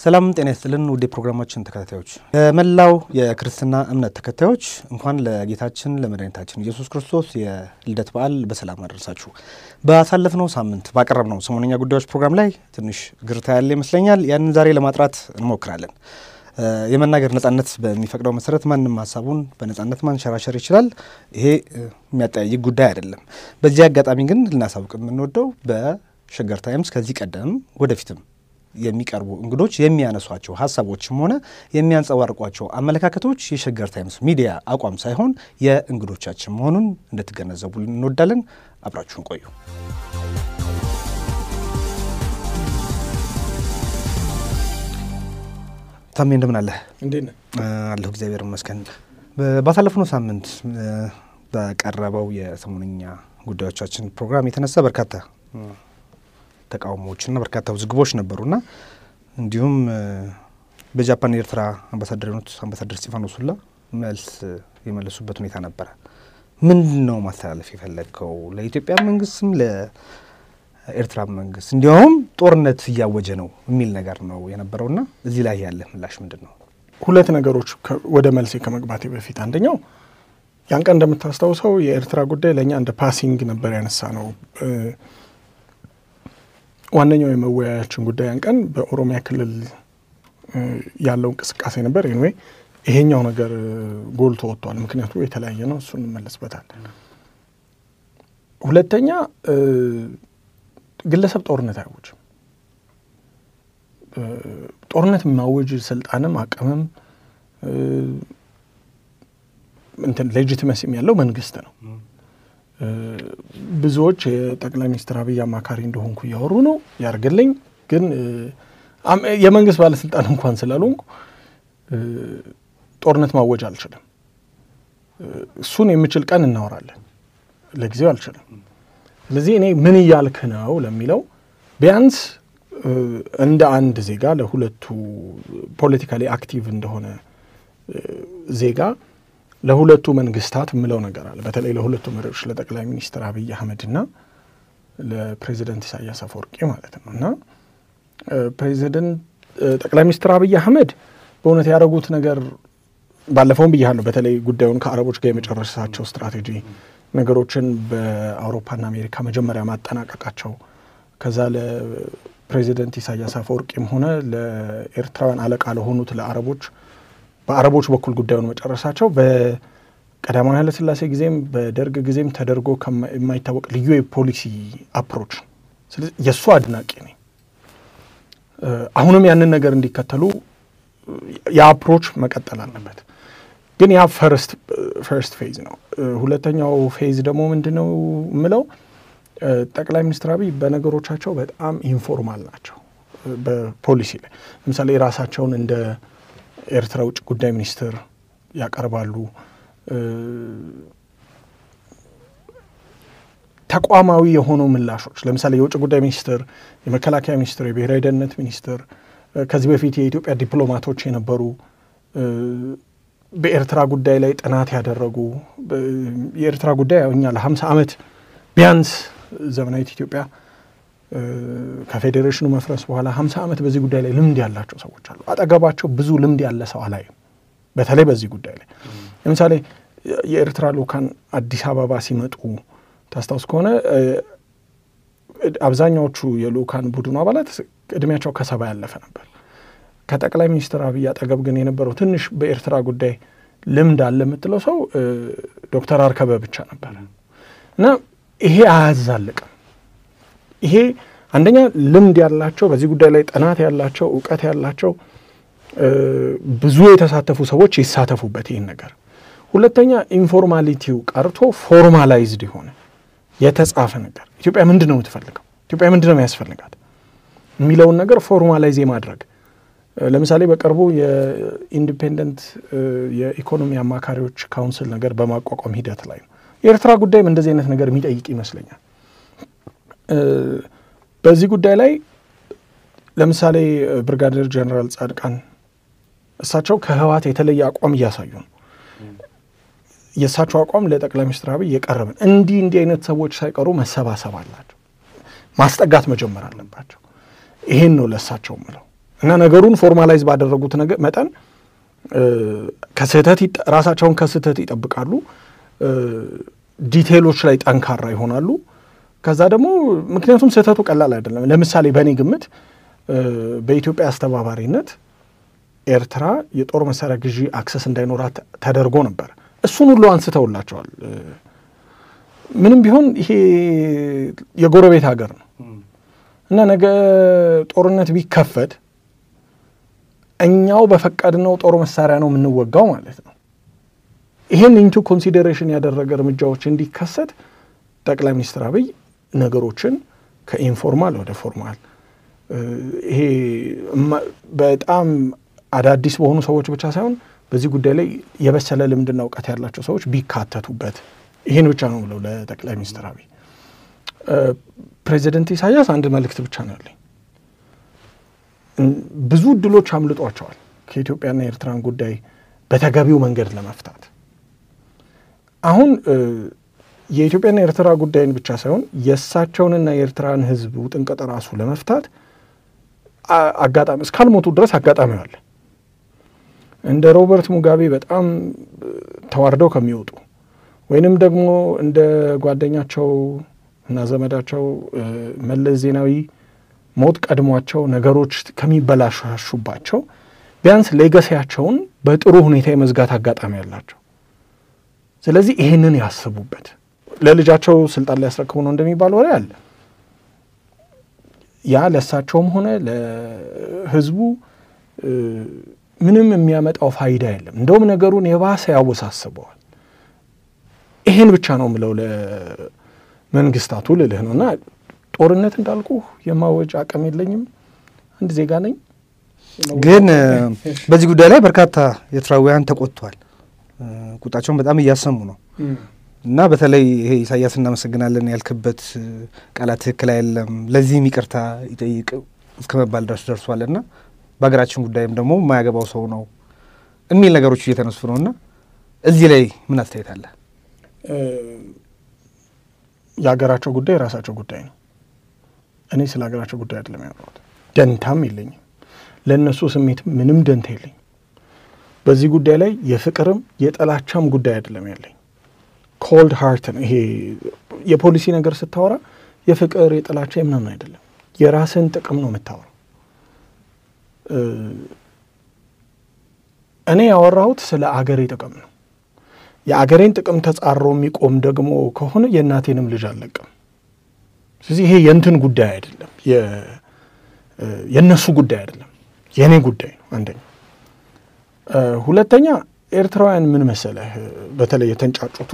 ሰላም ጤና ይስጥልን ውድ ፕሮግራማችን ተከታታዮች መላው የክርስትና እምነት ተከታዮች እንኳን ለጌታችን ለመድኃኒታችን ኢየሱስ ክርስቶስ የልደት በዓል በሰላም አደረሳችሁ። በአሳለፍነው ሳምንት ባቀረብነው ሰሞነኛ ጉዳዮች ፕሮግራም ላይ ትንሽ ግርታ ያለ ይመስለኛል። ያንን ዛሬ ለማጥራት እንሞክራለን። የመናገር ነጻነት በሚፈቅደው መሰረት ማንንም ሐሳቡን በነጻነት ማንሸራሸር ይችላል። ይሄ የሚያጠያይቅ ጉዳይ አይደለም። በዚህ አጋጣሚ ግን ልናሳውቅ የምንወደው በሸገር ታይምስ ከዚህ ቀደም ወደፊትም የሚቀርቡ እንግዶች የሚያነሷቸው ሐሳቦችም ሆነ የሚያንጸባርቋቸው አመለካከቶች የሸገር ታይምስ ሚዲያ አቋም ሳይሆን የእንግዶቻችን መሆኑን እንድትገነዘቡ እንወዳለን። አብራችሁን ቆዩ። ታሜ እንደምን አለ? እንዴት ነህ? አለሁ እግዚአብሔር ይመስገን። ባሳለፍነው ሳምንት በቀረበው የሰሞነኛ ጉዳዮቻችን ፕሮግራም የተነሳ በርካታ ተቃውሞዎችና በርካታ ውዝግቦች ነበሩና እንዲሁም በጃፓን ኤርትራ አምባሳደር ስቲፋኖስ ሁላ መልስ የመለሱበት ሁኔታ ነበር። ምንድነው ማስተላለፍ የፈለገው? ለኢትዮጵያ መንግስትም ለኤርትራ መንግስት እንዲያውም ጦርነት እያወጀ ነው የሚል ነገር ነው የነበረውና እዚህ ላይ ያለ ምላሽ ምንድነው? ሁለት ነገሮች ወደ መልስ ከመግባቴ በፊት አንደኛው ያን ቀን እንደምታስታውሰው የኤርትራ ጉዳይ ለኛ እንደ ፓሲንግ ነበር ያነሳ ነው። ዋነኛው የመወያያችን ጉዳይ ያን ቀን በኦሮሚያ ክልል ያለው እንቅስቃሴ ነበር። ኤኒዌይ ይሄኛው ነገር ጎልቶ ወጥቷል። ምክንያቱ የተለያየ ነው። እሱን እንመለስበታለን። ሁለተኛ ግለሰብ ጦርነት አይወጅም። ጦርነት ማወጅ ስልጣንም አቅምም ሌጂቲመሲም ያለው መንግስት ነው። ብዙዎች የጠቅላይ ሚኒስትር አብይ አማካሪ እንደሆንኩ ያወሩ ነው ያርግልኝ። ግን የመንግስት ባለስልጣን እንኳን ስላልሆንኩ ጦርነት ማወጅ አልችልም። እሱን የምችል ቀን እናወራለን። ለጊዜው አልችልም። ስለዚህ እኔ ምን እያልክ ነው ለሚለው ቢያንስ እንደ አንድ ዜጋ ለሁለቱ ፖለቲካሊ አክቲቭ እንደሆነ ዜጋ ለሁለቱ መንግስታት ምለው ነገር አለ። በተለይ ለሁለቱ መሪዎች ለጠቅላይ ሚኒስትር አብይ አህመድና ለፕሬዚዳንት ኢሳያስ አፈወርቂ ማለት ነውና ጠቅላይ ሚኒስትር አብይ አህመድ በእውነት ያደረጉት ነገር ባለፈውም ብያለሁ። በተለይ ጉዳዩን ከአረቦች ጋር የመጨረሻቸው ስትራቴጂ ነገሮችን በአውሮፓና አሜሪካ መጀመሪያ ማጠናቀቃቸው ከዛ ለፕሬዚዳንት ኢሳያስ አፈወርቂም ሆነ ለኤርትራውያን አለቃ ለሆኑት ለአረቦች በአረቦች በኩል ጉዳዩን መጨረሻቸው በቀዳማዊ ኃይለ ሥላሴ ጊዜም በደርግ ጊዜም ተደርጎ የማይታወቅ ልዩ የፖሊሲ አፕሮች። ስለዚህ የሱ አድናቂ ነኝ። አሁንም ያንን ነገር እንዲከተሉ የአፕሮች መቀጠል አለበት። ግን ያ ፈርስት ፌዝ ነው። ሁለተኛው ፌዝ ደግሞ ምንድነው ምለው ጠቅላይ ሚኒስትር አብይ በነገሮቻቸው በጣም ኢንፎርማል ናቸው። በፖሊሲ ላይ ለምሳሌ ራሳቸውን እንደ ኤርትራ ውጭ ጉዳይ ሚኒስትር ያቀርባሉ። ተቋማዊ የሆኑ ምላሾች ለምሳሌ የውጭ ጉዳይ ሚኒስትር፣ የመከላከያ ሚኒስትር፣ የብሔራዊ ደህንነት ሚኒስትር ከዚህ በፊት የኢትዮጵያ ዲፕሎማቶች የነበሩ በኤርትራ ጉዳይ ላይ ጥናት ያደረጉ የኤርትራ ጉዳይ እኛ ለ50 ዓመት ቢያንስ ዘመናዊት ኢትዮጵያ ከፌዴሬሽኑ መፍረስ በኋላ 50 ዓመት በዚህ ጉዳይ ላይ ልምድ ያላቸው ሰዎች አሉ። አጠገባቸው ብዙ ልምድ ያለ ሰው አላየም። በተለይ በዚህ ጉዳይ ላይ ለምሳሌ የኤርትራ ልኡካን አዲስ አበባ ሲመጡ ታስታውስ ከሆነ አብዛኛዎቹ የልኡካን ቡድኑ አባላት እድሜያቸው ከ70 ያለፈ ነበር። ከጠቅላይ ሚኒስትር አብይ አጠገብ ግን የነበረው ትንሽ በኤርትራ ጉዳይ ልምድ አለ የምትለው ሰው ዶክተር አርከበ ብቻ ነበር። እና ይሄ አያዛልቅም። ይሄ አንደኛ ልምድ ያላቸው በዚህ ጉዳይ ላይ ጥናት ያላቸው ዕውቀት ያላቸው ብዙ የተሳተፉ ሰዎች ይሳተፉበት ይሄን ነገር። ሁለተኛ ኢንፎርማሊቲው ቀርቶ ፎርማላይዝድ ይሆነ የተጻፈ ነገር ኢትዮጵያ ምንድነው የምትፈልገው፣ ኢትዮጵያ ምንድነው የሚያስፈልጋት የሚለውን ነገር ፎርማላይዝ ማድረግ። ለምሳሌ በቅርቡ የኢንዲፔንደንት የኢኮኖሚ አማካሪዎች ካውንስል ነገር በማቋቋም ሂደት ላይ ነው። የኤርትራ ጉዳይም እንደዚህ አይነት ነገር የሚጠይቅ ይመስለኛል። በዚህ ጉዳይ ላይ ለምሳሌ ብርጋዴር ጀነራል ጻድቃን እሳቸው ከህወሓት የተለየ አቋም እያሳዩ ነው። የእሳቸው አቋም ለጠቅላይ ሚኒስትር አብይ የቀረበን እንዲህ አይነት ሰዎች ሳይቀሩ መሰባሰብ አላቸው፣ ማስጠጋት መጀመር አለባቸው። ይሄን ነው ለእሳቸው ምለው እና ነገሩን ፎርማላይዝ ባደረጉት ነገር መጠን ከስህተት ራሳቸውን ከስህተት ይጠብቃሉ፣ ዲቴይሎች ላይ ጠንካራ ይሆናሉ። ከዛ ደግሞ ምክንያቱም ስህተቱ ቀላል አይደለም። ለምሳሌ በእኔ ግምት በኢትዮጵያ አስተባባሪነት ኤርትራ የጦር መሳሪያ ግዢ አክሰስ እንዳይኖራት ተደርጎ ነበር። እሱን ሁሉ አንስተውላቸዋል። ምንም ቢሆን ይሄ የጎረቤት ሀገር ነው እና ነገ ጦርነት ቢከፈት እኛው በፈቀድነው ጦር መሳሪያ ነው የምንወጋው ማለት ነው። ይሄን ኢንቱ ኮንሲደሬሽን ያደረገ እርምጃዎች እንዲከሰት ጠቅላይ ሚኒስትር አብይ ነገሮችን ከኢንፎርማል ወደ ፎርማል ይሄ በጣም አዳዲስ በሆኑ ሰዎች ብቻ ሳይሆን በዚህ ጉዳይ ላይ የበሰለ ልምድና እውቀት ያላቸው ሰዎች ቢካተቱበት ይሄን ብቻ ነው ብለው ለጠቅላይ ሚኒስትር አብይ ፕሬዚደንት ኢሳያስ አንድ መልእክት ብቻ ነው ያለኝ። ብዙ እድሎች አምልጧቸዋል ከኢትዮጵያና የኤርትራን ጉዳይ በተገቢው መንገድ ለመፍታት። አሁን የኢትዮጵያና የኤርትራ ጉዳይን ብቻ ሳይሆን የእሳቸውንና የኤርትራን ሕዝብ ውጥንቅጥ ራሱ ለመፍታት አጋጣሚ እስካልሞቱ ድረስ አጋጣሚ አለ። እንደ ሮበርት ሙጋቤ በጣም ተዋርደው ከሚወጡ ወይንም ደግሞ እንደ ጓደኛቸው እና ዘመዳቸው መለስ ዜናዊ ሞት ቀድሟቸው ነገሮች ከሚበላሹባቸው ቢያንስ ሌጋሲያቸውን በጥሩ ሁኔታ የመዝጋት አጋጣሚ ያላቸው። ስለዚህ ይሄንን ያስቡበት። ለልጃቸው ስልጣን ሊያስረክቡ ነው እንደሚባል ወሬ አለ። ያ ለእሳቸውም ሆነ ለህዝቡ ምንም የሚያመጣው ፋይዳ የለም። እንደውም ነገሩን የባሰ ያወሳስበዋል። ይሄን ብቻ ነው ምለው ለመንግስታቱ ልልህ ነውና ጦርነት እንዳልኩ የማወጅ አቅም የለኝም። አንድ ዜጋ ነኝ። ግን በዚህ ጉዳይ ላይ በርካታ ኤርትራውያን ተቆጥቷል። ቁጣቸውን በጣም እያሰሙ ነው እና በተለይ ይሄ ኢሳያስ እናመሰግናለን ያልክበት ቃላት ትክክል አይደለም፣ ለዚህም ይቅርታ ይጠይቅ እስከመባል ድረስ ደርሷልና በሀገራችን ጉዳይም ደግሞ የማያገባው ሰው ነው የሚል ነገሮች እየተነሱ ነውና እዚህ ላይ ምን አስተያየት አለ? የሀገራቸው ጉዳይ የራሳቸው ጉዳይ ነው። እኔ ስለ ሀገራቸው ጉዳይ አይደለም ያወራሁት። ደንታም የለኝም፣ ለእነሱ ስሜት ምንም ደንታ የለኝም። በዚህ ጉዳይ ላይ የፍቅርም የጥላቻም ጉዳይ አይደለም ያለኝ። ኮልድ ሃርት ነው። ይሄ የፖሊሲ ነገር ስታወራ የፍቅር የጥላቻ ምናምን አይደለም፣ የራስን ጥቅም ነው የምታወራው። እኔ ያወራሁት ስለ አገሬ ጥቅም ነው። የአገሬን ጥቅም ተጻሮ የሚቆም ደግሞ ከሆነ የእናቴንም ልጅ አልለቅም። ስለዚህ ይሄ የእንትን ጉዳይ አይደለም፣ የእነሱ ጉዳይ አይደለም፣ የእኔ ጉዳይ ነው። አንደኛ። ሁለተኛ ኤርትራውያን ምን መሰለህ፣ በተለይ የተንጫጩቱ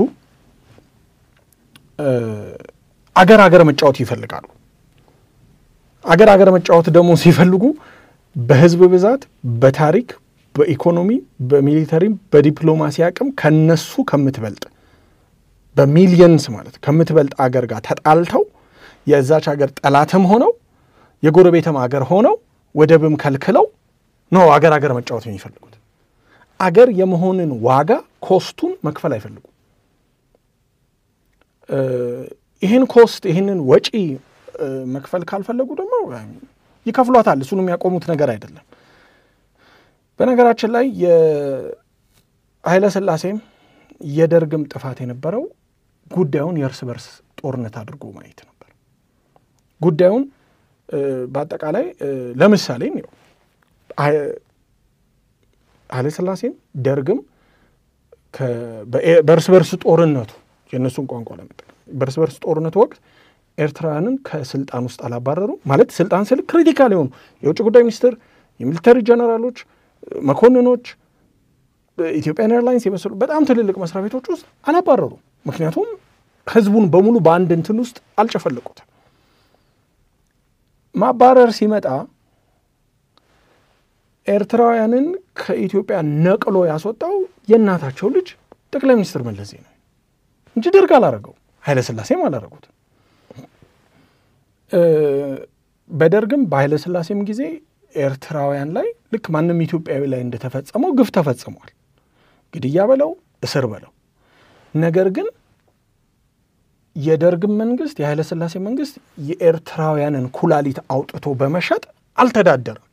አገር መጫወት ይፈልጋሉ። አገር መጫወት ደግሞ ሲፈልጉ በህዝብ ብዛት፣ በታሪክ፣ በኢኮኖሚ፣ በሚሊተሪም፣ በዲፕሎማሲ አቅም ከነሱ ከምትበልጥ በሚሊየንስ ማለት ከምትበልጥ አገር ጋር ተጣልተው የዛች አገር ጠላትም ሆነው የጎረቤትም አገር ሆነው ወደብም ከልክለው ነው አገር መጫወት የሚፈልጉት። አገር የመሆንን ዋጋ ኮስቱን መክፈል አይፈልጉም። ይህን ኮስት ይህንን ወጪ መክፈል ካልፈለጉ ደግሞ ይከፍሏታል። እሱን የሚያቆሙት ነገር አይደለም። በነገራችን ላይ የኃይለ ሥላሴም የደርግም ጥፋት የነበረው ጉዳዩን የእርስ በርስ ጦርነት አድርጎ ማየት ነበር። ጉዳዩን በአጠቃላይ ለምሳሌ ነው ኃይለ ሥላሴም ደርግም በእርስ በርስ ጦርነቱ የእነሱን ቋንቋ ለመጠቀም በእርስ በርስ ጦርነቱ ወቅት ኤርትራውያንን ከስልጣን ውስጥ አላባረሩ ማለት ስልጣን ስል ክሪቲካል የሆኑ የውጭ ጉዳይ ሚኒስትር፣ የሚሊተሪ ጀነራሎች፣ መኮንኖች፣ ኢትዮጵያን ኤርላይንስ የመሰሉ በጣም ትልልቅ መስሪያ ቤቶች ውስጥ አላባረሩ። ምክንያቱም ህዝቡን በሙሉ በአንድ እንትን ውስጥ አልጨፈለቁት። ማባረር ሲመጣ ኤርትራውያንን ከኢትዮጵያ ነቅሎ ያስወጣው የእናታቸው ልጅ ጠቅላይ ሚኒስትር መለስ ዜናዊ እንጂ ደርግ አላረገው፣ ኃይለ ሥላሴም አላረጉት። በደርግም በኃይለ ሥላሴም ጊዜ ኤርትራውያን ላይ ልክ ማንም ኢትዮጵያዊ ላይ እንደተፈጸመው ግፍ ተፈጽሟል። ግድያ በለው እስር በለው። ነገር ግን የደርግም መንግስት የኃይለ ሥላሴ መንግስት የኤርትራውያንን ኩላሊት አውጥቶ በመሸጥ አልተዳደረም።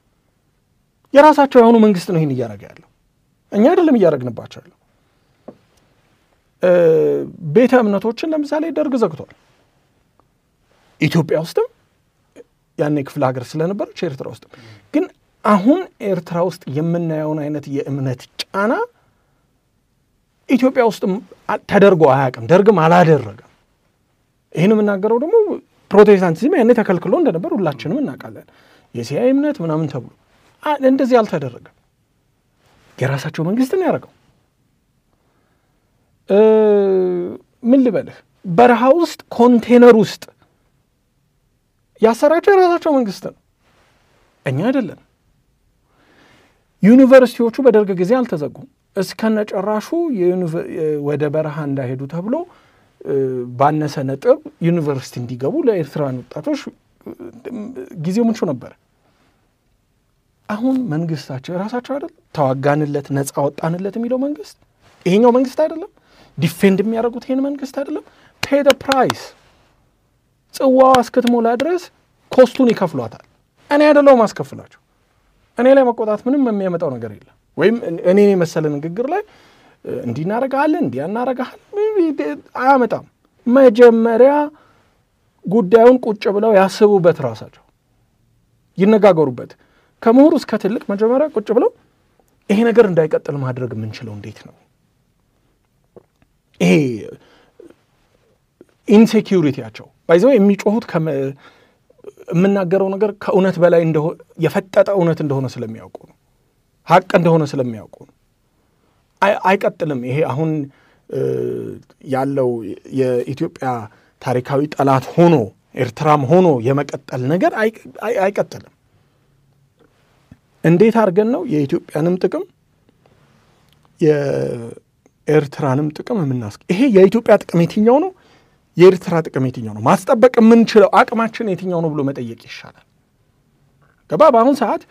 የራሳቸው የሆኑ መንግስት ነው ይሄን እያደረገ ያለው እኛ አይደለም እያደረግንባቸው ያለው ቤተ እምነቶችን ለምሳሌ ደርግ ዘግቷል ኢትዮጵያ ውስጥም ያኔ ክፍለ ሀገር ስለነበረች ኤርትራ ውስጥ ግን አሁን ኤርትራ ውስጥ የምናየውን አይነት የእምነት ጫና ኢትዮጵያ ውስጥ ተደርጎ አያውቅም ደርግም አላደረገም ይሄን የምናገረው ደግሞ ፕሮቴስታንቲዝም ያኔ ተከልክሎ እንደነበር ሁላችንም እናውቃለን የሲአይ እምነት ምናምን ተብሎ እንደዚህ አልተደረገም የራሳቸው መንግስት ነው ያደረገው ምን ልበልህ በረሃ ውስጥ ኮንቴነር ውስጥ ያሰራቸው የራሳቸው መንግስት ነው እኛ አይደለም ዩኒቨርሲቲዎቹ በደርግ ጊዜ አልተዘጉም እስከነጨራሹ ወደ በረሃ እንዳይሄዱ ተብሎ ባነሰ ነጥብ ዩኒቨርሲቲ እንዲገቡ ለኤርትራውያን ወጣቶች ጊዜው ምንቹ ነበር አሁን መንግስታቸው የራሳቸው አይደል ተዋጋንለት ነፃ ወጣንለት የሚለው መንግስት ይሄኛው መንግስት አይደለም ዲፌንድ የሚያደርጉት ይሄን መንግስት አይደለም pay the price ጽዋው እስከተሞላ ድረስ ኮስቱን ይከፍሏታል እኔ አይደለም ማስከፍላቸው እኔ ላይ መቆጣት ምንም የሚያመጣው ነገር የለም ወይም እኔ መሰለ ንግግር ላይ እንዲናረጋለን እንዲያናረጋለን አያመጣም መጀመሪያ ጉዳዩን ቁጭ ብለው ያስቡበት ራሳቸው ይነጋገሩበት ከመሆኑ እስከ ትልቅ መጀመሪያ ቁጭ ብለው ይሄ ነገር እንዳይቀጥል ማድረግ የምንችለው እንዴት ነው ይሄ ኢንሴኪዩሪቲያቸው ባይዘው የሚጮሁት የምናገረው ነገር ከእውነት በላይ እንደሆነ የፈጠጠ እውነት እንደሆነ ስለሚያውቁ ነው ሀቅ እንደሆነ ስለሚያውቁ ነው አይቀጥልም ይሄ አሁን ያለው የኢትዮጵያ ታሪካዊ ጠላት ሆኖ ኤርትራም ሆኖ የመቀጠል ነገር አይቀጥልም እንዴት አድርገን ነው የኢትዮጵያንም ጥቅም የኤርትራንም ጥቅም ይሄ የኢትዮጵያ ጥቅም የትኛው ነው የኤርትራ ጥቅም የትኛው ነው ማስጠበቅ የምንችለው አቅማችን የትኛው ነው ብሎ መጠየቅ ይሻላል ገባ በአሁን ሰዓት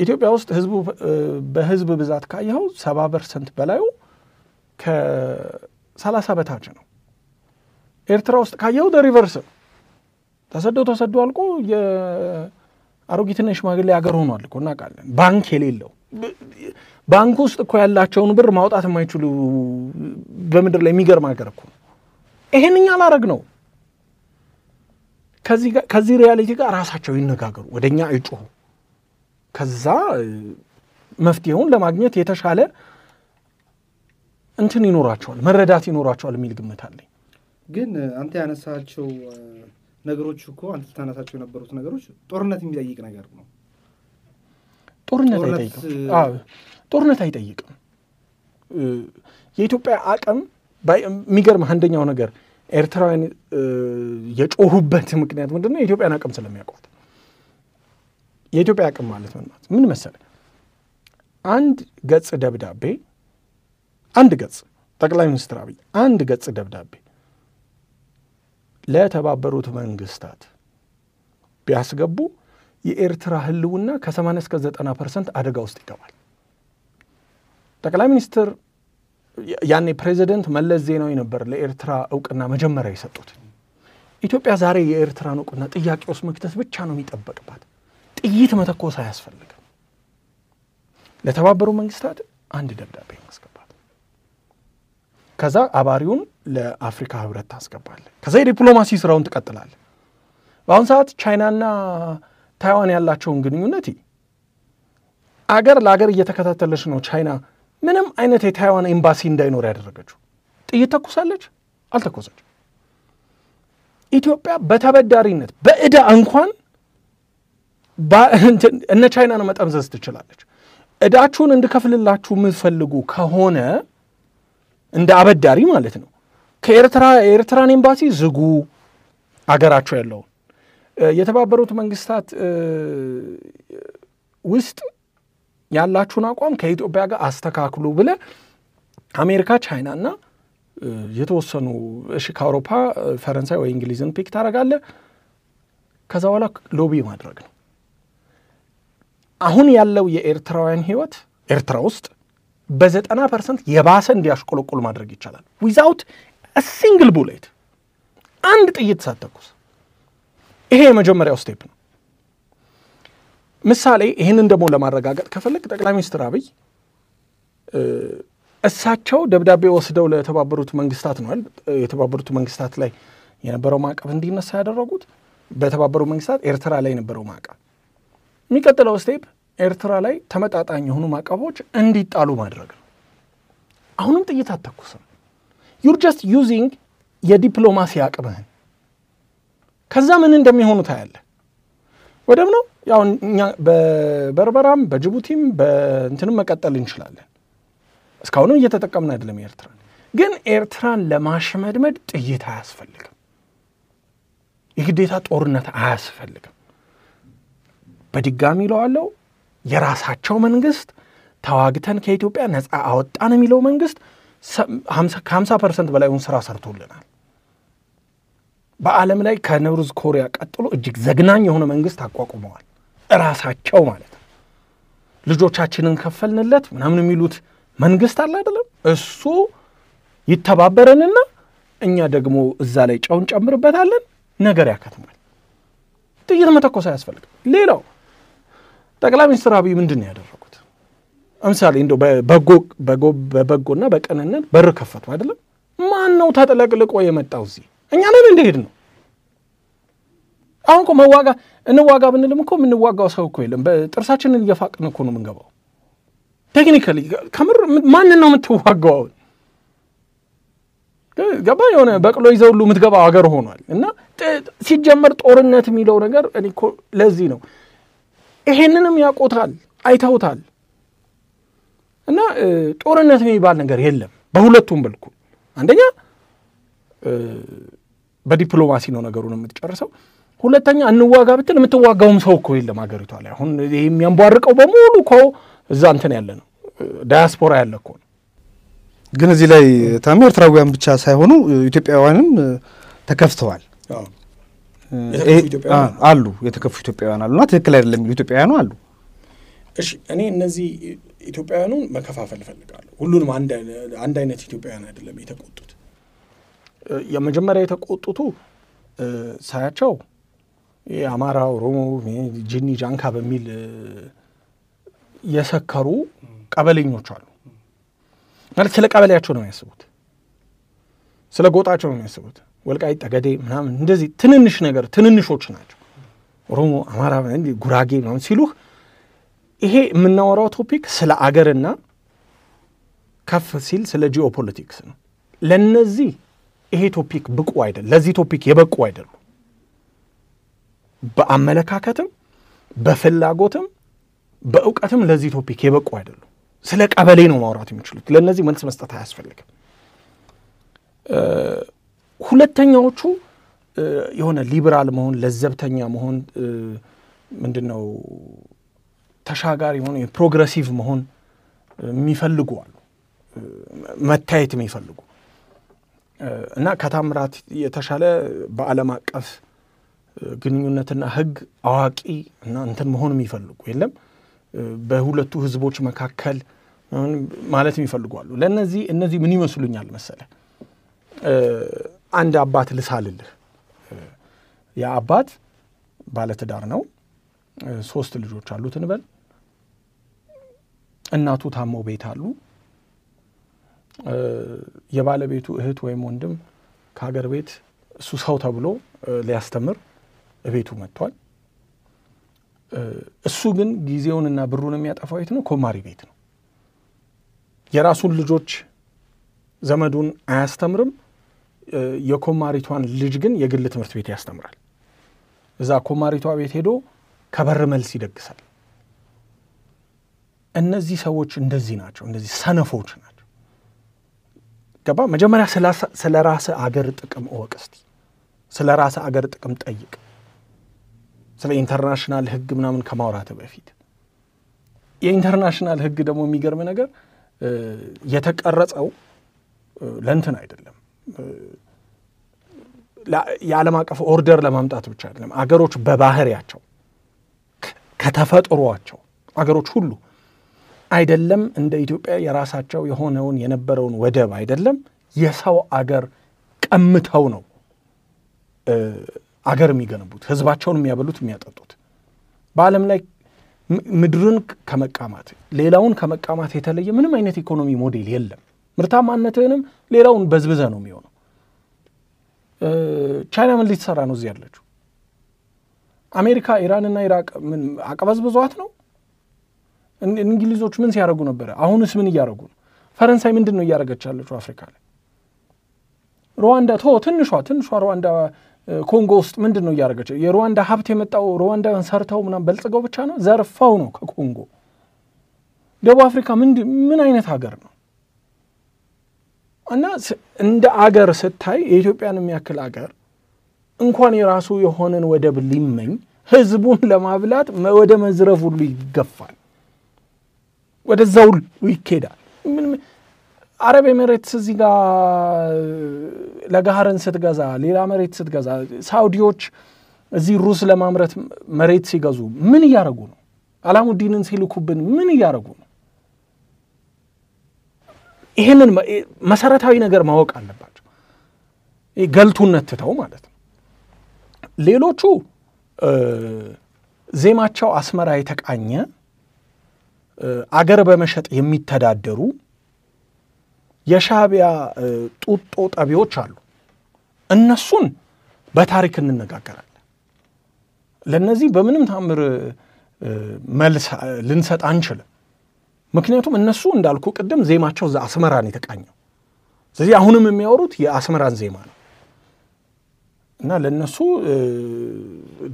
ኢትዮጵያ ውስጥ ህዝቡ በህዝብ ብዛት ካየው 70% በላዩ ከ30 በታች ነው ኤርትራ ውስጥ ካየው ሪቨርስ ተሰዶ አልቆ የአሮጊትና ሽማግሌ ሀገር ሆኗል እኮ እናውቃለን ባንክ የሌለው ባንክ ውስጥ እኮ ያላቸውን ብር ማውጣት የማይችሉ በመድር ላይ የሚገርም ሀገር እኮ ይሄንኛ አላረግ ነው ከዚህ ሪያሊቲ ጋር ራሳቸው ይነጋገሩ ወደኛ አይጮሁ ከዛ መፍትሄውን ለማግኘት የተሻለ እንትን ይኖራቸዋል መረዳት ይኖራቸዋል የሚል ግምት አለኝ ግን አንተ ያነሳቸው ነገሮች እኮ አንተ ታነሳቸው የነበሩት ነገሮች ጦርነት የሚጠይቅ ነገር ነው ጦርነት አይጠይቅም የኢትዮጵያ አቅም የሚገርም አንደኛው ነገር ኤርትራውያን የጮሁበት ምክንያት ምንድነው የኢትዮጵያን አቅም ስለሚያውቁት የኢትዮጵያ አቅም ማለት ምን መሰለህ አንድ ገጽ ደብዳቤ አንድ ገጽ ጠቅላይ ሚኒስትር አብይ አንድ ገጽ ደብዳቤ ለተባበሩት መንግስታት ቢያስገቡ የኤርትራ ህልውና ከ80 እስከ 90% አደጋ ውስጥ ይገባል ጠቅላይ ሚኒስትር ያኔ ፕሬዚደንት መለስ ዜናዊ ነበር ለኤርትራ ዕውቅና መጀመሪያ የሰጡት ኢትዮጵያ ዛሬ የኤርትራን ዕውቅና ጥያቄ ውስጥ መክተት ብቻ ነው የሚጠበቅባት ጥይት መተኮስ አያስፈልግም ለተባበሩ መንግስታት አንድ ደብዳቤ ማስገባት ከዛ አባሪውን ለአፍሪካ ህብረት ታስገባለ ከዛ የዲፕሎማሲ ስራውን ትቀጥላለ በአሁን ሰዓት ቻይናና ታይዋን ያላቸውን ግንኙነት አገር ለአገር እየተከታተለች ነው ቻይና ምንም አይነት የታይዋን ኤምባሲ እንዳይኖር ያደረገችው ጥይት ተኩሳለች አልተኮሰች ኢትዮጵያ በተበዳሪነት በእዳ እንኳን እነ ቻይናን መጠምዘዝ ትችላለች እዳችሁን እንድከፍልላችሁ የምትፈልጉ ከሆነ እንደ አበዳሪ ማለት ነው ከኤርትራን ኤምባሲ ዝጉ አገራቸው ያለው የተባበሩት መንግስታት ውስጥ ያላችሁን አቋም ከኢትዮጵያ ጋር አስተካክሉ ብለ አሜሪካ ቻይናና የተወሰኑ ከአውሮፓ ፈረንሳይ ወይ እንግሊዝን ፒክ ታረጋለ ከዛ በኋላ ሎቢ ማድረግ ነው አሁን ያለው የኤርትራውያን ህይወት ኤርትራ ውስጥ በ90% የባሰ እንዲያሽቆለቆል ማድረግ ይቻላል without a single bullet አንድ ጥይት ሳትተኩስ ይሄ የመጀመሪያው ስቴፕ ነው ምሳሌ ይህንን ደግሞ ለማረጋገጥ ከፈለግ ጠቅላይ ሚኒስትር አብይ እሳቸው ደብዳቤ ወስደው ለተባበሩት መንግስታት ነው የተባበሩት መንግስታት ላይ የነበረው ማዕቀብ እንዲነሳ ያደረጉት በተባበሩት መንግስታት ኤርትራ ላይ የነበረው ማዕቀብ የሚቀጥለው ስቴፕ ኤርትራ ላይ ተመጣጣኝ የሆኑ ማዕቀቦች እንዲጣሉ ማድረግ ነው። አሁንም ጥይት አተኩስም። you're just using የዲፕሎማሲ አቅምህን ከዛ ምን እንደሚሆኑ ታያለ። ወደም ነው ያው እኛ በበርበራም በጅቡቲም በእንትንም መቀጠል እንችላለን። እስካሁንም እየተጠቀምን አይደለም ኤርትራ ግን ኤርትራን ለማሽመድመድ ጥይት አያስፈልግም። የግዴታ ጦርነት አያስፈልግም። በድጋሚ ለዋለው የራሳቸው መንግስት ተዋግተን ከኢትዮጵያ ነፃ አወጣን የሚለው መንግስት 50% በላይውን ስራ ሰርቶልናል። በዓለም ላይ ከኖርዝ ኮሪያ ቀጥሎ እጅግ ዘግናኝ የሆነ መንግስት አቋቁመዋል ራሳቸው ማለት ነው። ልጆቻችንን ከፈልንለት ምናምን የሚሉት መንግስት አለ አይደለም እሱ ይተባበረንና እኛ ደግሞ እዛ ላይ ጫውን ጨምርበታለን ነገር ያከትማል። ጥይት መተኮስ አያስፈልግም። ሌላው ጠቅላይ ሚኒስትር አብይ ምንድነው ያደረጉት? አምሳሌ እንደው በበጎና በቀንነት በር ከፈቱ አይደለም። ማን ነው ተጠለቅልቆ የመጣው እዚህ? እኛ ነን እንደሄድ ነው። አሁን እኮ እንዋጋ ብንልም እኮ የምንዋጋው ሰው እኮ የለም። በጥርሳችንን እየፋቅን እኮ ነው የምንገባው። ቴክኒካሊ ከምር ማን ነው የምትዋጋው? ገባ የሆነ በቅሎ ይዘው ሁሉ የምትገባው ሀገር ሆኗል። እና ሲጀመር ጦርነት የሚለው ነገር እኔ እኮ ለዚህ ነው ይሄንንም ያቆታል አይተውታል። እና ጦርነት የሚባል ነገር የለም በሁለቱም በልኩ። አንደኛ በዲፕሎማሲ ነው ነገሩን የምትጨርሰው። ሁለተኛ እንዋጋ ብትል የምትዋጋውም ሰው እኮ የለም ሀገሪቷ ላይ። አሁን የሚያንቧርቀው በሙሉ እኮ እዛ እንትን ያለ ነው ዳያስፖራ ያለ እኮ ነው። ግን እዚህ ላይ ታም ኤርትራውያን ብቻ ሳይሆኑ ኢትዮጵያውያንም ተከፍተዋል። አሉ የተከፉ ኢትዮጵያውያን አሉና ትክክል አይደለም የሚሉ ኢትዮጵያውያኑ አሉ። እሺ እኔ እነዚህ ኢትዮጵያውያኑን መከፋፈል ፈልጋለሁ። ሁሉንም አንድ አይነት ኢትዮጵያውያን አይደለም የተቆጡት። የመጀመሪያ የተቆጡቱ ሳያቸው የአማራ ኦሮሞ ጂኒ ጃንካ በሚል የሰከሩ ቀበሌኞች አሉ። ማለት ስለ ቀበሌያቸው ነው የሚያስቡት፣ ስለ ጎጣቸው ነው የሚያስቡት። ወልቃይት ጠገዴ ምናምን እንደዚህ ትንንሽ ነገር ትንንሾች ናቸው። ኦሮሞ አማራ ጉራጌ ምናምን ሲሉህ ይሄ የምናወራው ቶፒክ ስለ አገርና ከፍ ሲል ስለ ጂኦፖለቲክስ ነው። ለነዚህ ይሄ ቶፒክ ብቁ አይደለም። ለዚህ ቶፒክ የበቁ አይደሉም። በአመለካከትም በፍላጎትም በእውቀትም ለዚህ ቶፒክ የበቁ አይደሉም። ስለ ቀበሌ ነው ማውራት የሚችሉት። ለነዚህ መልስ መስጠት አያስፈልግም። ሁለተኛዎቹ የሆነ ሊበራል መሆን ለዘብተኛ መሆን ምንድነው ተሻጋሪ መሆን ፕሮግሬሲቭ መሆን የሚፈልጉ አሉ። መታየት የሚፈልጉ እና ከታምራት የተሻለ በዓለም አቀፍ ግንኙነትና ህግ አዋቂ እና እንትን መሆን የሚፈልጉ የለም። በሁለቱ ህዝቦች መካከል ማለት የሚፈልጉ አሉ። እነዚህ ምን ይመስሉኛል መሰለ? አንድ አባት ልሳልልህ። ያ አባት ባለትዳር ነው። 3 ልጆች አሉት እንበል። እናቱ ታሞ ቤት አሉ። የባለቤቱ እህት ወይም ወንድም ከሀገር ቤት እሱ ሰው ተብሎ ሊያስተምር ቤቱ መጥቷል። እሱ ግን ጊዜውንና ብሩን የሚያጠፋው የት ነው? ኮማሪ ቤት ነው። የራሱን ልጆች ዘመዱን አያስተምርም። የኮማሪቷን ልጅ ግን የግል ትምህርት ቤት ያስተምራል። እዛ ኮማሪቷ ቤት ሄዶ ከበር መልስ ይደግሳል። እነዚህ ሰዎች እንደዚህ ናቸው። እንደዚህ ሰነፎች ናቸው። ገባ? መጀመሪያ ስለ ራስ አገር ጥቅም እወቅ እስቲ። ስለ ራስ አገር ጥቅም ጠይቅ። ስለ ኢንተርናሽናል ህግ ምናምን ከማውራት በፊት የኢንተርናሽናል ህግ ደግሞ የሚገርም ነገር የተቀረጸው ለእንትን አይደለም። የዓለም አቀፍ ኦርደር ለማምጣት ብቻ አይደለም። አገሮች በባህሪያቸው ከተፈጥሯቸው አገሮች ሁሉ አይደለም እንደ ኢትዮጵያ የራሳቸው የሆነውን የነበረውን ወደብ አይደለም የሰው አገር ቀምተው ነው አገር የሚገነቡት፣ ህዝባቸውን የሚያበሉት የሚያጠጡት። በዓለም ላይ ምድርን ከመቃማት ሌላውን ከመቃማት የተለየ ምንም አይነት ኢኮኖሚ ሞዴል የለም። ምርታማነትንም ሌላውን በዝብዘ ነው የሚሆነው። ቻይና ምን ልትሰራ ነው እዚህ ያለችው? አሜሪካ ኢራንና ኢራቅ ምን አቀበዝብዟት ነው? እንግሊዞች ምን ሲያደርጉ ነበር? አሁንስ ምን እያደረጉ ነው? ፈረንሳይ ምንድን ነው እያደረገች ያለችው አፍሪካ ላይ? ሩዋንዳ ትንሿ ሩዋንዳ ኮንጎ ውስጥ ምንድን ነው እያደረገች? የሩዋንዳ ሀብት የመጣው ሩዋንዳን ሰርተው ምናምን በልጽገው ብቻ ነው? ዘርፈው ነው ከኮንጎ። ደቡብ አፍሪካ ምን አይነት ሀገር ነው? እና እንደ አገር ስታይ የኢትዮጵያን የሚያክል አገር እንኳን የራሱ የሆነን ወደብ ሊመኝ ህዝቡን ለማብላት ወደ መዝረፍ ሁሉ ይገፋል፣ ወደዛው ይኬዳል። አረብ ኤሚሬትስ እዚህ ጋር ለጋሃርን ስትገዛ ሌላ መሬት ስትገዛ ሳውዲዎች እዚህ ሩስ ለማምረት መሬት ሲገዙ ምን እያደረጉ ነው? አላሙዲንን ሲልኩብን ምን እያደረጉ ነው? ይሄንን መሰረታዊ ነገር ማወቅ አለባቸው። ገልቱነት ትተው ማለት ነው። ሌሎቹ ዜማቸው አስመራ የተቃኘ አገር በመሸጥ የሚተዳደሩ የሻዕቢያ ጡጦ ጠቢዎች አሉ። እነሱን በታሪክ እንነጋገራለን። ለነዚህ በምንም ታምር መልስ ልንሰጥ አንችልም። ምክንያቱም እነሱ እንዳልኩ ቅድም ዜማቸው አስመራን የተቃኘው፣ ስለዚህ አሁንም የሚያወሩት የአስመራን ዜማ ነው እና ለነሱ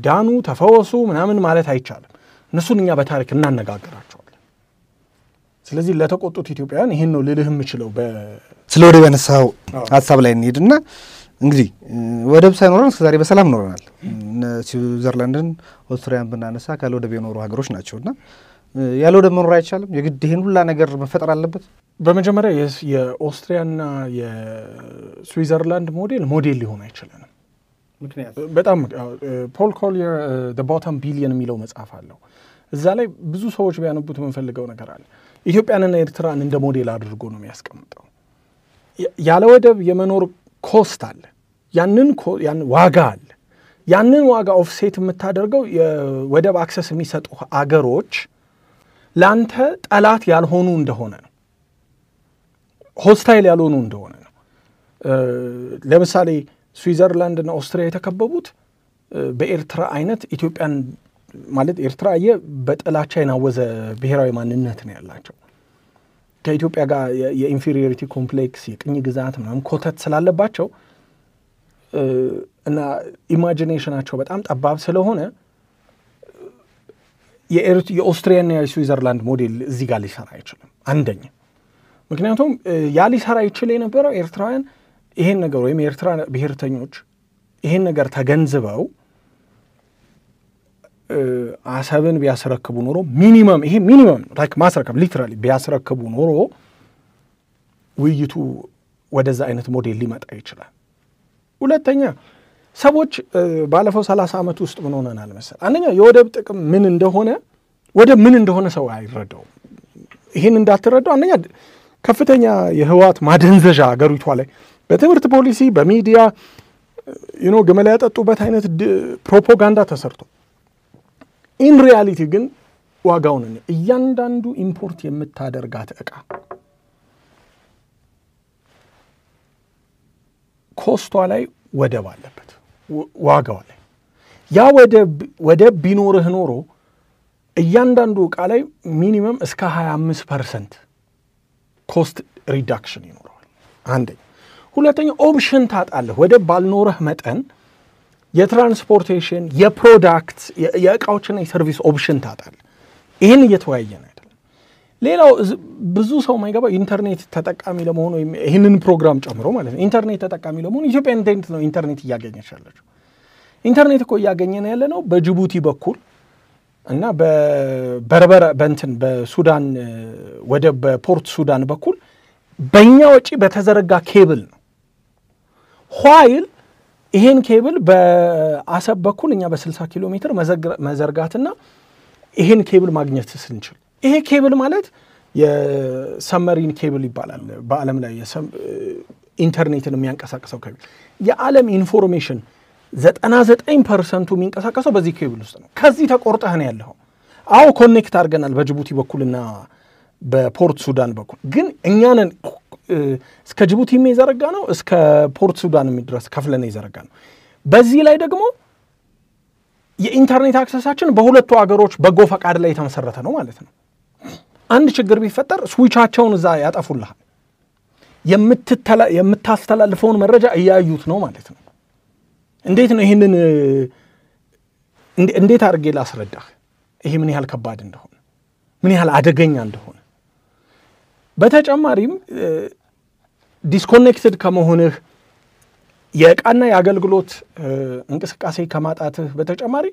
ዳኑ ተፈወሱ ምናምን ማለት አይቻልም። እነሱን እኛ በታሪክ እናነጋግራቸዋለን። ስለዚህ ለተቆጡት ኢትዮጵያውያን ይሄን ነው ልልህ የምችለው። ስለ ወደብ ያነሳው ሀሳብ ላይ እንሄድና እንግዲህ ወደብ ሳይኖረን እስከዛሬ በሰላም ኖረናል። ስዊዘርላንድን ኦስትሪያን ብናነሳ ካለ ወደብ የኖሩ ሀገሮች ናቸውና ያለ ወደብ መኖር አይቻልም። የግድ ይሄን ሁላ ነገር መፈጠር አለበት። በመጀመሪያ የኦስትሪያና የስዊዘርላንድ ሞዴል ሊሆን አይችልም። ምክንያቱም በጣም ፖል ኮሊየር the bottom billion የሚለው መጽሐፍ አለው። እዛ ላይ ብዙ ሰዎች ቢያነቡት የምንፈልገው ነገር አለ። ኢትዮጵያንና ኤርትራን እንደ ሞዴል አድርጎ ነው የሚያስቀምጠው። ያለ ወደብ የመኖር ኮስት አለ፣ ያን ዋጋ አለ። ያንን ዋጋ ኦፍሴት የምታደርገው የወደብ አክሰስ የሚሰጡ አገሮች ላንተ ጠላት ያልሆኑ እንደሆነ ነው፣ ሆስታይል ያልሆኑ እንደሆነ ነው። ለምሳሌ ስዊዘርላንድና ኦስትሪያ የተከበቡት በኤርትራ አይነት ኢትዮጵያን ማለት ኤርትራ በጥላቻ የናወዘ ብሔራዊ ማንነት ነው ያላቸው። ከኢትዮጵያ ጋር የኢንፌሪዮሪቲ ኮምፕሌክስ የቅኝ ግዛት ምናምን ኮተት ስላለባቸው እና ኢማጂኔሽናቸው በጣም ጠባብ ስለሆነ የኦስትሪያና የስዊዘርላንድ ሞዴል እዚህ ጋር ሊሰራ አይችልም። አንደኛ ምክንያቱም ያ ሊሰራ ይችል የነበረው ኤርትራውያን ይሄን ነገር ወይም የኤርትራ ብሔርተኞች ይሄን ነገር ተገንዝበው አሰብን ቢያስረክቡ ኖሮ ሚኒመም ላይክ ማስረከብ ሊትራሊ ቢያስረክቡ ኖሮ ውይይቱ ወደዛ አይነት ሞዴል ሊመጣ ይችላል። ሁለተኛ ሰዎች ባለፈው 30 ዓመት ውስጥ ምን ሆነናል መሰል? አንደኛ የወደብ ጥቅም ምን እንደሆነ ሰው አይረዳው። ይሄን እንዳትረዳው አንደኛ ከፍተኛ የህዋት ማደንዘዣ አገሪቷ ላይ በትምህርት ፖሊሲ በሚዲያ ግመላ ያጠጡበት አይነት ፕሮፓጋንዳ ተሰርቶ ኢን ሪያሊቲ ግን ዋጋውን እያንዳንዱ ኢምፖርት የምታደርጋት ዕቃ ኮስቷ ላይ ወደብ አለበት፣ ዋጋው ላይ ያ ወደብ ቢኖርህ ኖሮ እያንዳንዱ ዕቃ ላይ ሚኒመም እስከ 25% ኮስት ሪዳክሽን ይኖረዋል። አንደኛ። ሁለተኛ ኦፕሽን ታጣለህ። ወደብ ባልኖረህ መጠን የትራንስፖርቴሽን የፕሮዳክት የእቃዎችና የሰርቪስ ኦፕሽን ታጣለህ። ይህን እየተወያየን አይደለም። ሌላው ብዙ ሰው ማይገባ ኢንተርኔት ተጠቃሚ ለመሆኑ ይህንን ፕሮግራም ጨምሮ ማለት ነው ኢንተርኔት ተጠቃሚ ለመሆኑ ኢትዮጵያ እንዴት ነው ኢንተርኔት እያገኘች ያለችው? ኢንተርኔት እኮ እያገኘን ያለ ነው በጅቡቲ በኩል እና በበርበራ በሱዳን ወደብ በፖርት ሱዳን በኩል በእኛ ወጪ በተዘረጋ ኬብል ነው። ኋይል ይሄን ኬብል በአሰብ በኩል እኛ በ60 ኪሎ ሜትር መዘርጋትና ይሄን ኬብል ማግኘት ስንችል፣ ይሄ ኬብል ማለት የሰመሪን ኬብል ይባላል። በዓለም ላይ ኢንተርኔትን የሚያንቀሳቅሰው ኬብል የዓለም ኢንፎርሜሽን 99% የሚንቀሳቀሰው በዚህ ኬብል ውስጥ ነው። ከዚህ ተቆርጠህ ነው ያለው። አዎ ኮኔክት አድርገናል በጅቡቲ በኩልና በፖርት ሱዳን በኩል ግን እኛንን እስከ ጅቡቲ የሚዘረጋ ነው እስከ ፖርት ሱዳን የሚድረስ ከፍለን ይዘረጋ ነው። በዚህ ላይ ደግሞ የኢንተርኔት አክሰሳችን በሁለቱ ሀገሮች በጎ ፈቃድ ላይ የተመሰረተ ነው ማለት ነው። አንድ ችግር ቢፈጠር ስዊቻቸውን እዛ ያጠፉልሃል። የምታስተላልፈውን መረጃ እያዩት ነው ማለት ነው። እንዴት ነው ይሄንን እንዴት አድርጌ ላስረዳህ? ይሄ ምን ያህል ከባድ እንደሆነ ምን ያህል አደገኛ እንደሆነ በተጨማሪም ዲስኮኔክትድ ከመሆንህ የዕቃና የአገልግሎት እንቅስቃሴ ከማጣትህ በተጨማሪ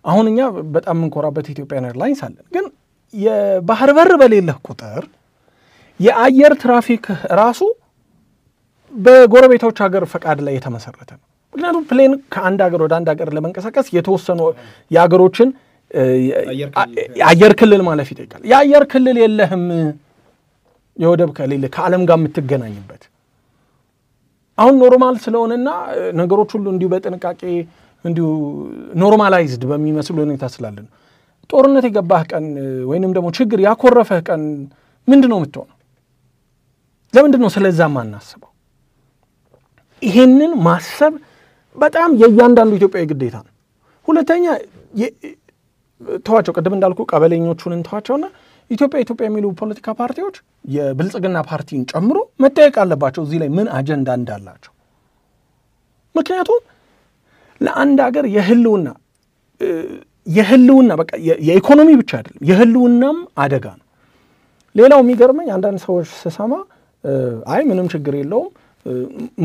አሁን እኛ በጣም እንኮራበት ኢትዮጵያን ኤርላይንስ አለን። ግን የባህር በር በሌለህ ቁጥር የአየር ትራፊክ ራሱ በጎረቤቶች ሀገር ፈቃድ ላይ የተመሰረተ ነው። ምክንያቱም ፕሌን ከአንድ ሀገር ወደ አንድ ሀገር ለመንቀሳቀስ የተወሰኑ የሀገሮችን የአየር ክልል ማለፍ ይጠይቃል። የአየር ክልል የለህም የወደብ ከሌለ ከዓለም ጋር የምትገናኝበት አሁን ኖርማል ስለሆነና ነገሮች ሁሉ እንዲሁ በጥንቃቄ እንዲሁ ኖርማላይዝድ በሚመስል ሁኔታ ስላለን ጦርነት የገባህ ቀን ወይንም ደግሞ ችግር ያኮረፈህ ቀን ምንድነው የምትሆነው? ለምንድነው ስለዛ ማናስበው? ይሄንን ማሰብ በጣም የእያንዳንዱ ኢትዮጵያዊ ግዴታ ነው። ሁለተኛ ተዋቸው ቅድም እንዳልኩ ቀበሌኞቹን እንተዋቸውና ኢትዮጵያ የሚሉ ፖለቲካ ፓርቲዎች የብልጽግና ፓርቲን ጨምሮ መጠየቅ አለባቸው እዚህ ላይ ምን አጀንዳ እንዳላቸው። ምክንያቱም ለአንድ ሀገር የህልውና በቃ የኢኮኖሚ ብቻ አይደለም የህልውናም አደጋ ነው። ሌላው የሚገርመኝ አንዳንድ ሰዎች ስሰማ አይ ምንም ችግር የለውም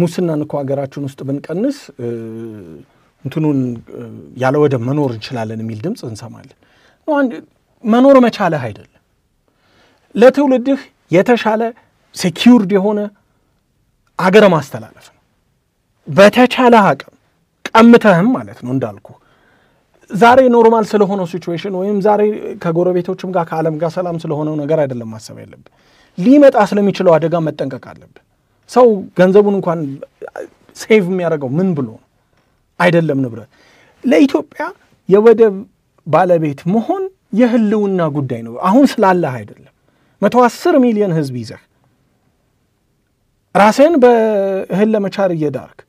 ሙስናን እኮ ሀገራችን ውስጥ ብንቀንስ እንትኑን ያለ ወደብ መኖር እንችላለን የሚል ድምፅ እንሰማለን። መኖር መቻለህ አይደለም ለትውልድህ የተሻለ ሴኪዩርድ የሆነ አገር ማስተላለፍ ነው። በተቻለ አቅም ቀምተህም ማለት ነው እንዳልኩ ዛሬ ኖርማል ስለሆነው ሲቹዌሽን ወይም ዛሬ ከጎረቤቶችም ጋር ከዓለም ጋር ሰላም ስለሆነው ነገር አይደለም ማሰብ ያለብህ። ሊመጣ ስለሚችለው አደጋ መጠንቀቅ አለብህ። ሰው ገንዘቡን እንኳን ሴቭ የሚያደርገው ምን ብሎ ነው አይደለም ንብረት። ለኢትዮጵያ የወደብ ባለቤት መሆን የህልውና ጉዳይ ነው። አሁን ስላለህ አይደለም 110 ሚሊዮን ህዝብ ይዘህ ራስህን በእህል ለመቻር እየዳርክ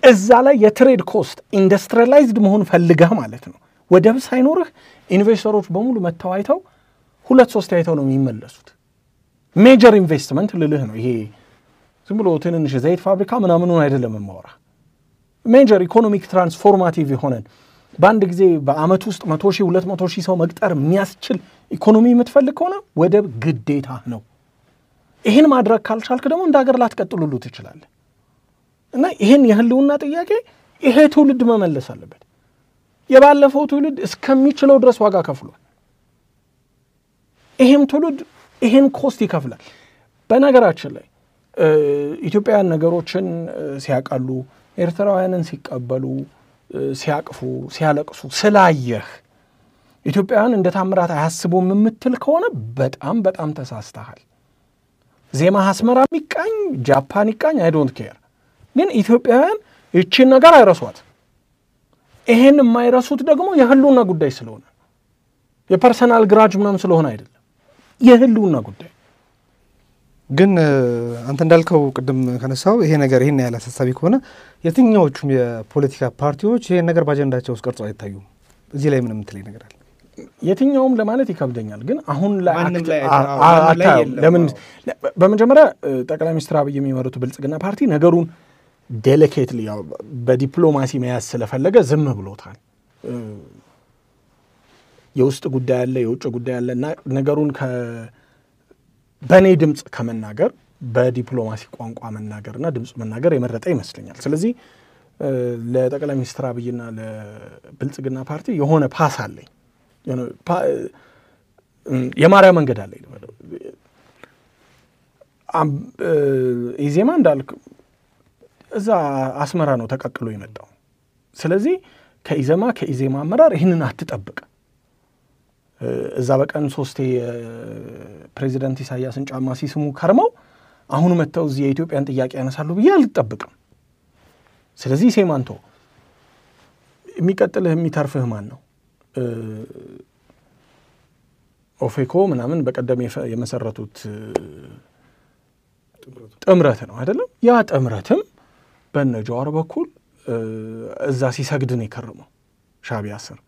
እዛ ላይ የትሬድ ኮስት ኢንዱስትሪላይዝድ መሆን ፈልገህ ማለት ነው። ወደብ ሳይኖርህ ኢንቨስተሮች በሙሉ መተዋይተው 2-3 አይተው ነው የሚመለሱት። ሜጀር ኢንቨስትመንት ልልህ ነው ይሄ ዝም ብሎ ትንንሽ ዘይት ፋብሪካ ምናምኑን አይደለም የማወራ። ሜጀር ኢኮኖሚክ ትራንስፎርማቲቭ የሆነን በአንድ ጊዜ በአመት ውስጥ 100,000 200,000 ሰው መቅጠር የሚያስችል ኢኮኖሚ የምትፈልግ ከሆነ ወደብ ግዴታ ነው። ይህን ማድረግ ካልቻልክ ደግሞ እንደ ሀገር ላትቀጥሉሉ ትችላለህ። እና ይህን የህልውና ጥያቄ ይሄ ትውልድ መመለስ አለበት። የባለፈው ትውልድ እስከሚችለው ድረስ ዋጋ ከፍሏል። ይሄም ትውልድ ይሄን ኮስት ይከፍላል። በነገራችን ላይ ኢትዮጵያውያን ነገሮችን ሲያቃሉ ኤርትራውያንን ሲቀበሉ ሲያቅፉ ሲያለቅሱ ስላየህ ኢትዮጵያውያን እንደ ታምራት አያስቡም የምትል ከሆነ በጣም በጣም ተሳስተሃል። ዜማ አስመራ ይቃኝ ጃፓን ይቃኝ አይ ዶንት ኬር፣ ግን ኢትዮጵያውያን እቺን ነገር አይረሷት። ይሄን የማይረሱት ደግሞ የህልውና ጉዳይ ስለሆነ የፐርሰናል ግራጅ ምናምን ስለሆነ አይደለም፣ የህልውና ጉዳይ። ግን አንተ እንዳልከው ቅድም ከነሳው ይሄ ነገር ይሄን ያለ አሳሳቢ ከሆነ የትኛዎቹም የፖለቲካ ፓርቲዎች ይሄን ነገር ባጀንዳቸው ውስጥ ቀርጸው አይታዩም። እዚህ ላይ ምንም ትለይ ነገር አለ? የትኛውም ለማለት ይከብደኛል፣ ግን አሁን ላይ ለምን በመጀመሪያ ጠቅላይ ሚኒስትር አብይ የሚመሩት ብልጽግና ፓርቲ ነገሩን ዴሊኬትሊ ያው በዲፕሎማሲ መያዝ ስለፈለገ ዝም ብሎታል። የውስጥ ጉዳይ አለ የውጭ ጉዳይ አለና ነገሩን በኔ ድምጽ ከመናገር በዲፕሎማሲ ቋንቋ መናገርና ድምጽ መናገር የመረጠ ይመስለኛል። ስለዚህ ለጠቅላይ ሚኒስትር አብይና ለብልጽግና ፓርቲ የሆነ ፓስ አለኝ፣ የማርያም መንገድ አለኝ። ኢዜማ እንዳልክ እዛ አስመራ ነው ተቀቅሎ የመጣው። ስለዚህ ከኢዜማ አመራር ይህንን አትጠብቅ። እዛ በቀን 3 ፕሬዚዳንት ኢሳያስን ጫማ ሲስሙ ከርመው አሁን መተው እዚህ የኢትዮጵያን ጥያቄ ያነሳሉ ብዬ አልጠብቅም። ስለዚህ ሴማንቶ የሚቀጥልህ የሚተርፍህ ማን ነው? ኦፌኮ ምናምን በቀደም የመሰረቱት ጥምረት ነው አይደለም? ያ ጥምረትም በነጃዋር በኩል እዛ ሲሰግድ ነው የከረመው ሻዕቢያ ስር።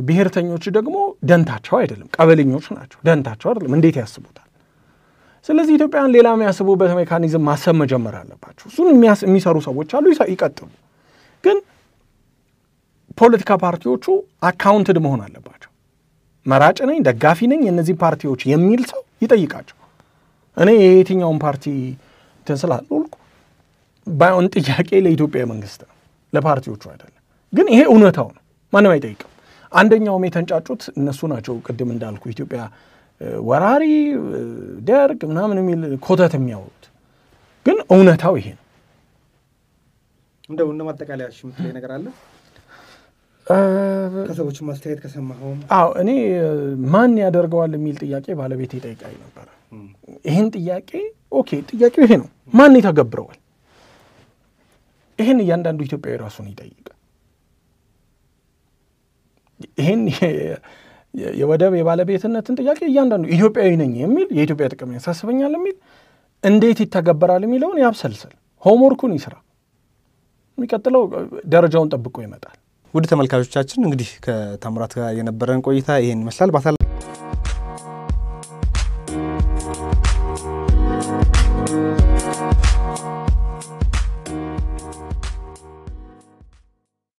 ብሔርተኞች ደግሞ ደንታቸው አይደለም፣ ቀበሌኞች ናቸው። ደንታቸው አይደለም፣ እንዴት ያስቡታል? ስለዚህ ኢትዮጵያን ሌላ የሚያስቡበት ሜካኒዝም ማሰብ መጀመር አለባቸው። እሱን የሚሰሩ ሰዎች አሉ፣ ይቀጥሉ። ግን ፖለቲካ ፓርቲዎቹ አካውንትድ መሆን አለባቸው። መራጭ ነኝ ደጋፊ ነኝ የነዚህ ፓርቲዎች የሚል ሰው ይጠይቃቸው። እኔ የየትኛውን ፓርቲ ተንስላልኩ ባይሆን ጥያቄ ለኢትዮጵያ መንግስት ነው፣ ለፓርቲዎቹ አይደለም። ግን ይሄ እውነታው ነው፣ ማንም አይጠይቅም። አንደኛውም የተንጫጩት እነሱ ናቸው። ቅድም እንዳልኩ ኢትዮጵያ ወራሪ ደርግ ምናምን የሚል ኮተት የሚያወሩት፣ ግን እውነታው ይሄ ነው። እንደው ማጠቃለያ የምትለኝ ነገር አለ? ከሰዎች ማስተያየት ከሰማኸው? አዎ እኔ ማን ያደርገዋል የሚል ጥያቄ ባለቤት ይጠይቃኝ ነበር። ይሄን ጥያቄ ኦኬ፣ ጥያቄው ይሄ ነው፣ ማን ይተገብረዋል? ይሄን እያንዳንዱ ኢትዮጵያዊ ራሱን ይጠይቅ። ይሄን የወደብ የባለቤትነትን ጥያቄ እያንዳንዱ ኢትዮጵያዊ ነኝ የሚል የኢትዮጵያ ጥቅም ያሳስበኛል የሚል እንዴት ይተገበራል የሚለውን ያብሰልሰል፣ ሆምወርኩን ይስራ። የሚቀጥለው ደረጃውን ጠብቆ ይመጣል። ውድ ተመልካቾቻችን እንግዲህ ከታምራት ጋር የነበረን ቆይታ ይሄን ይመስላል።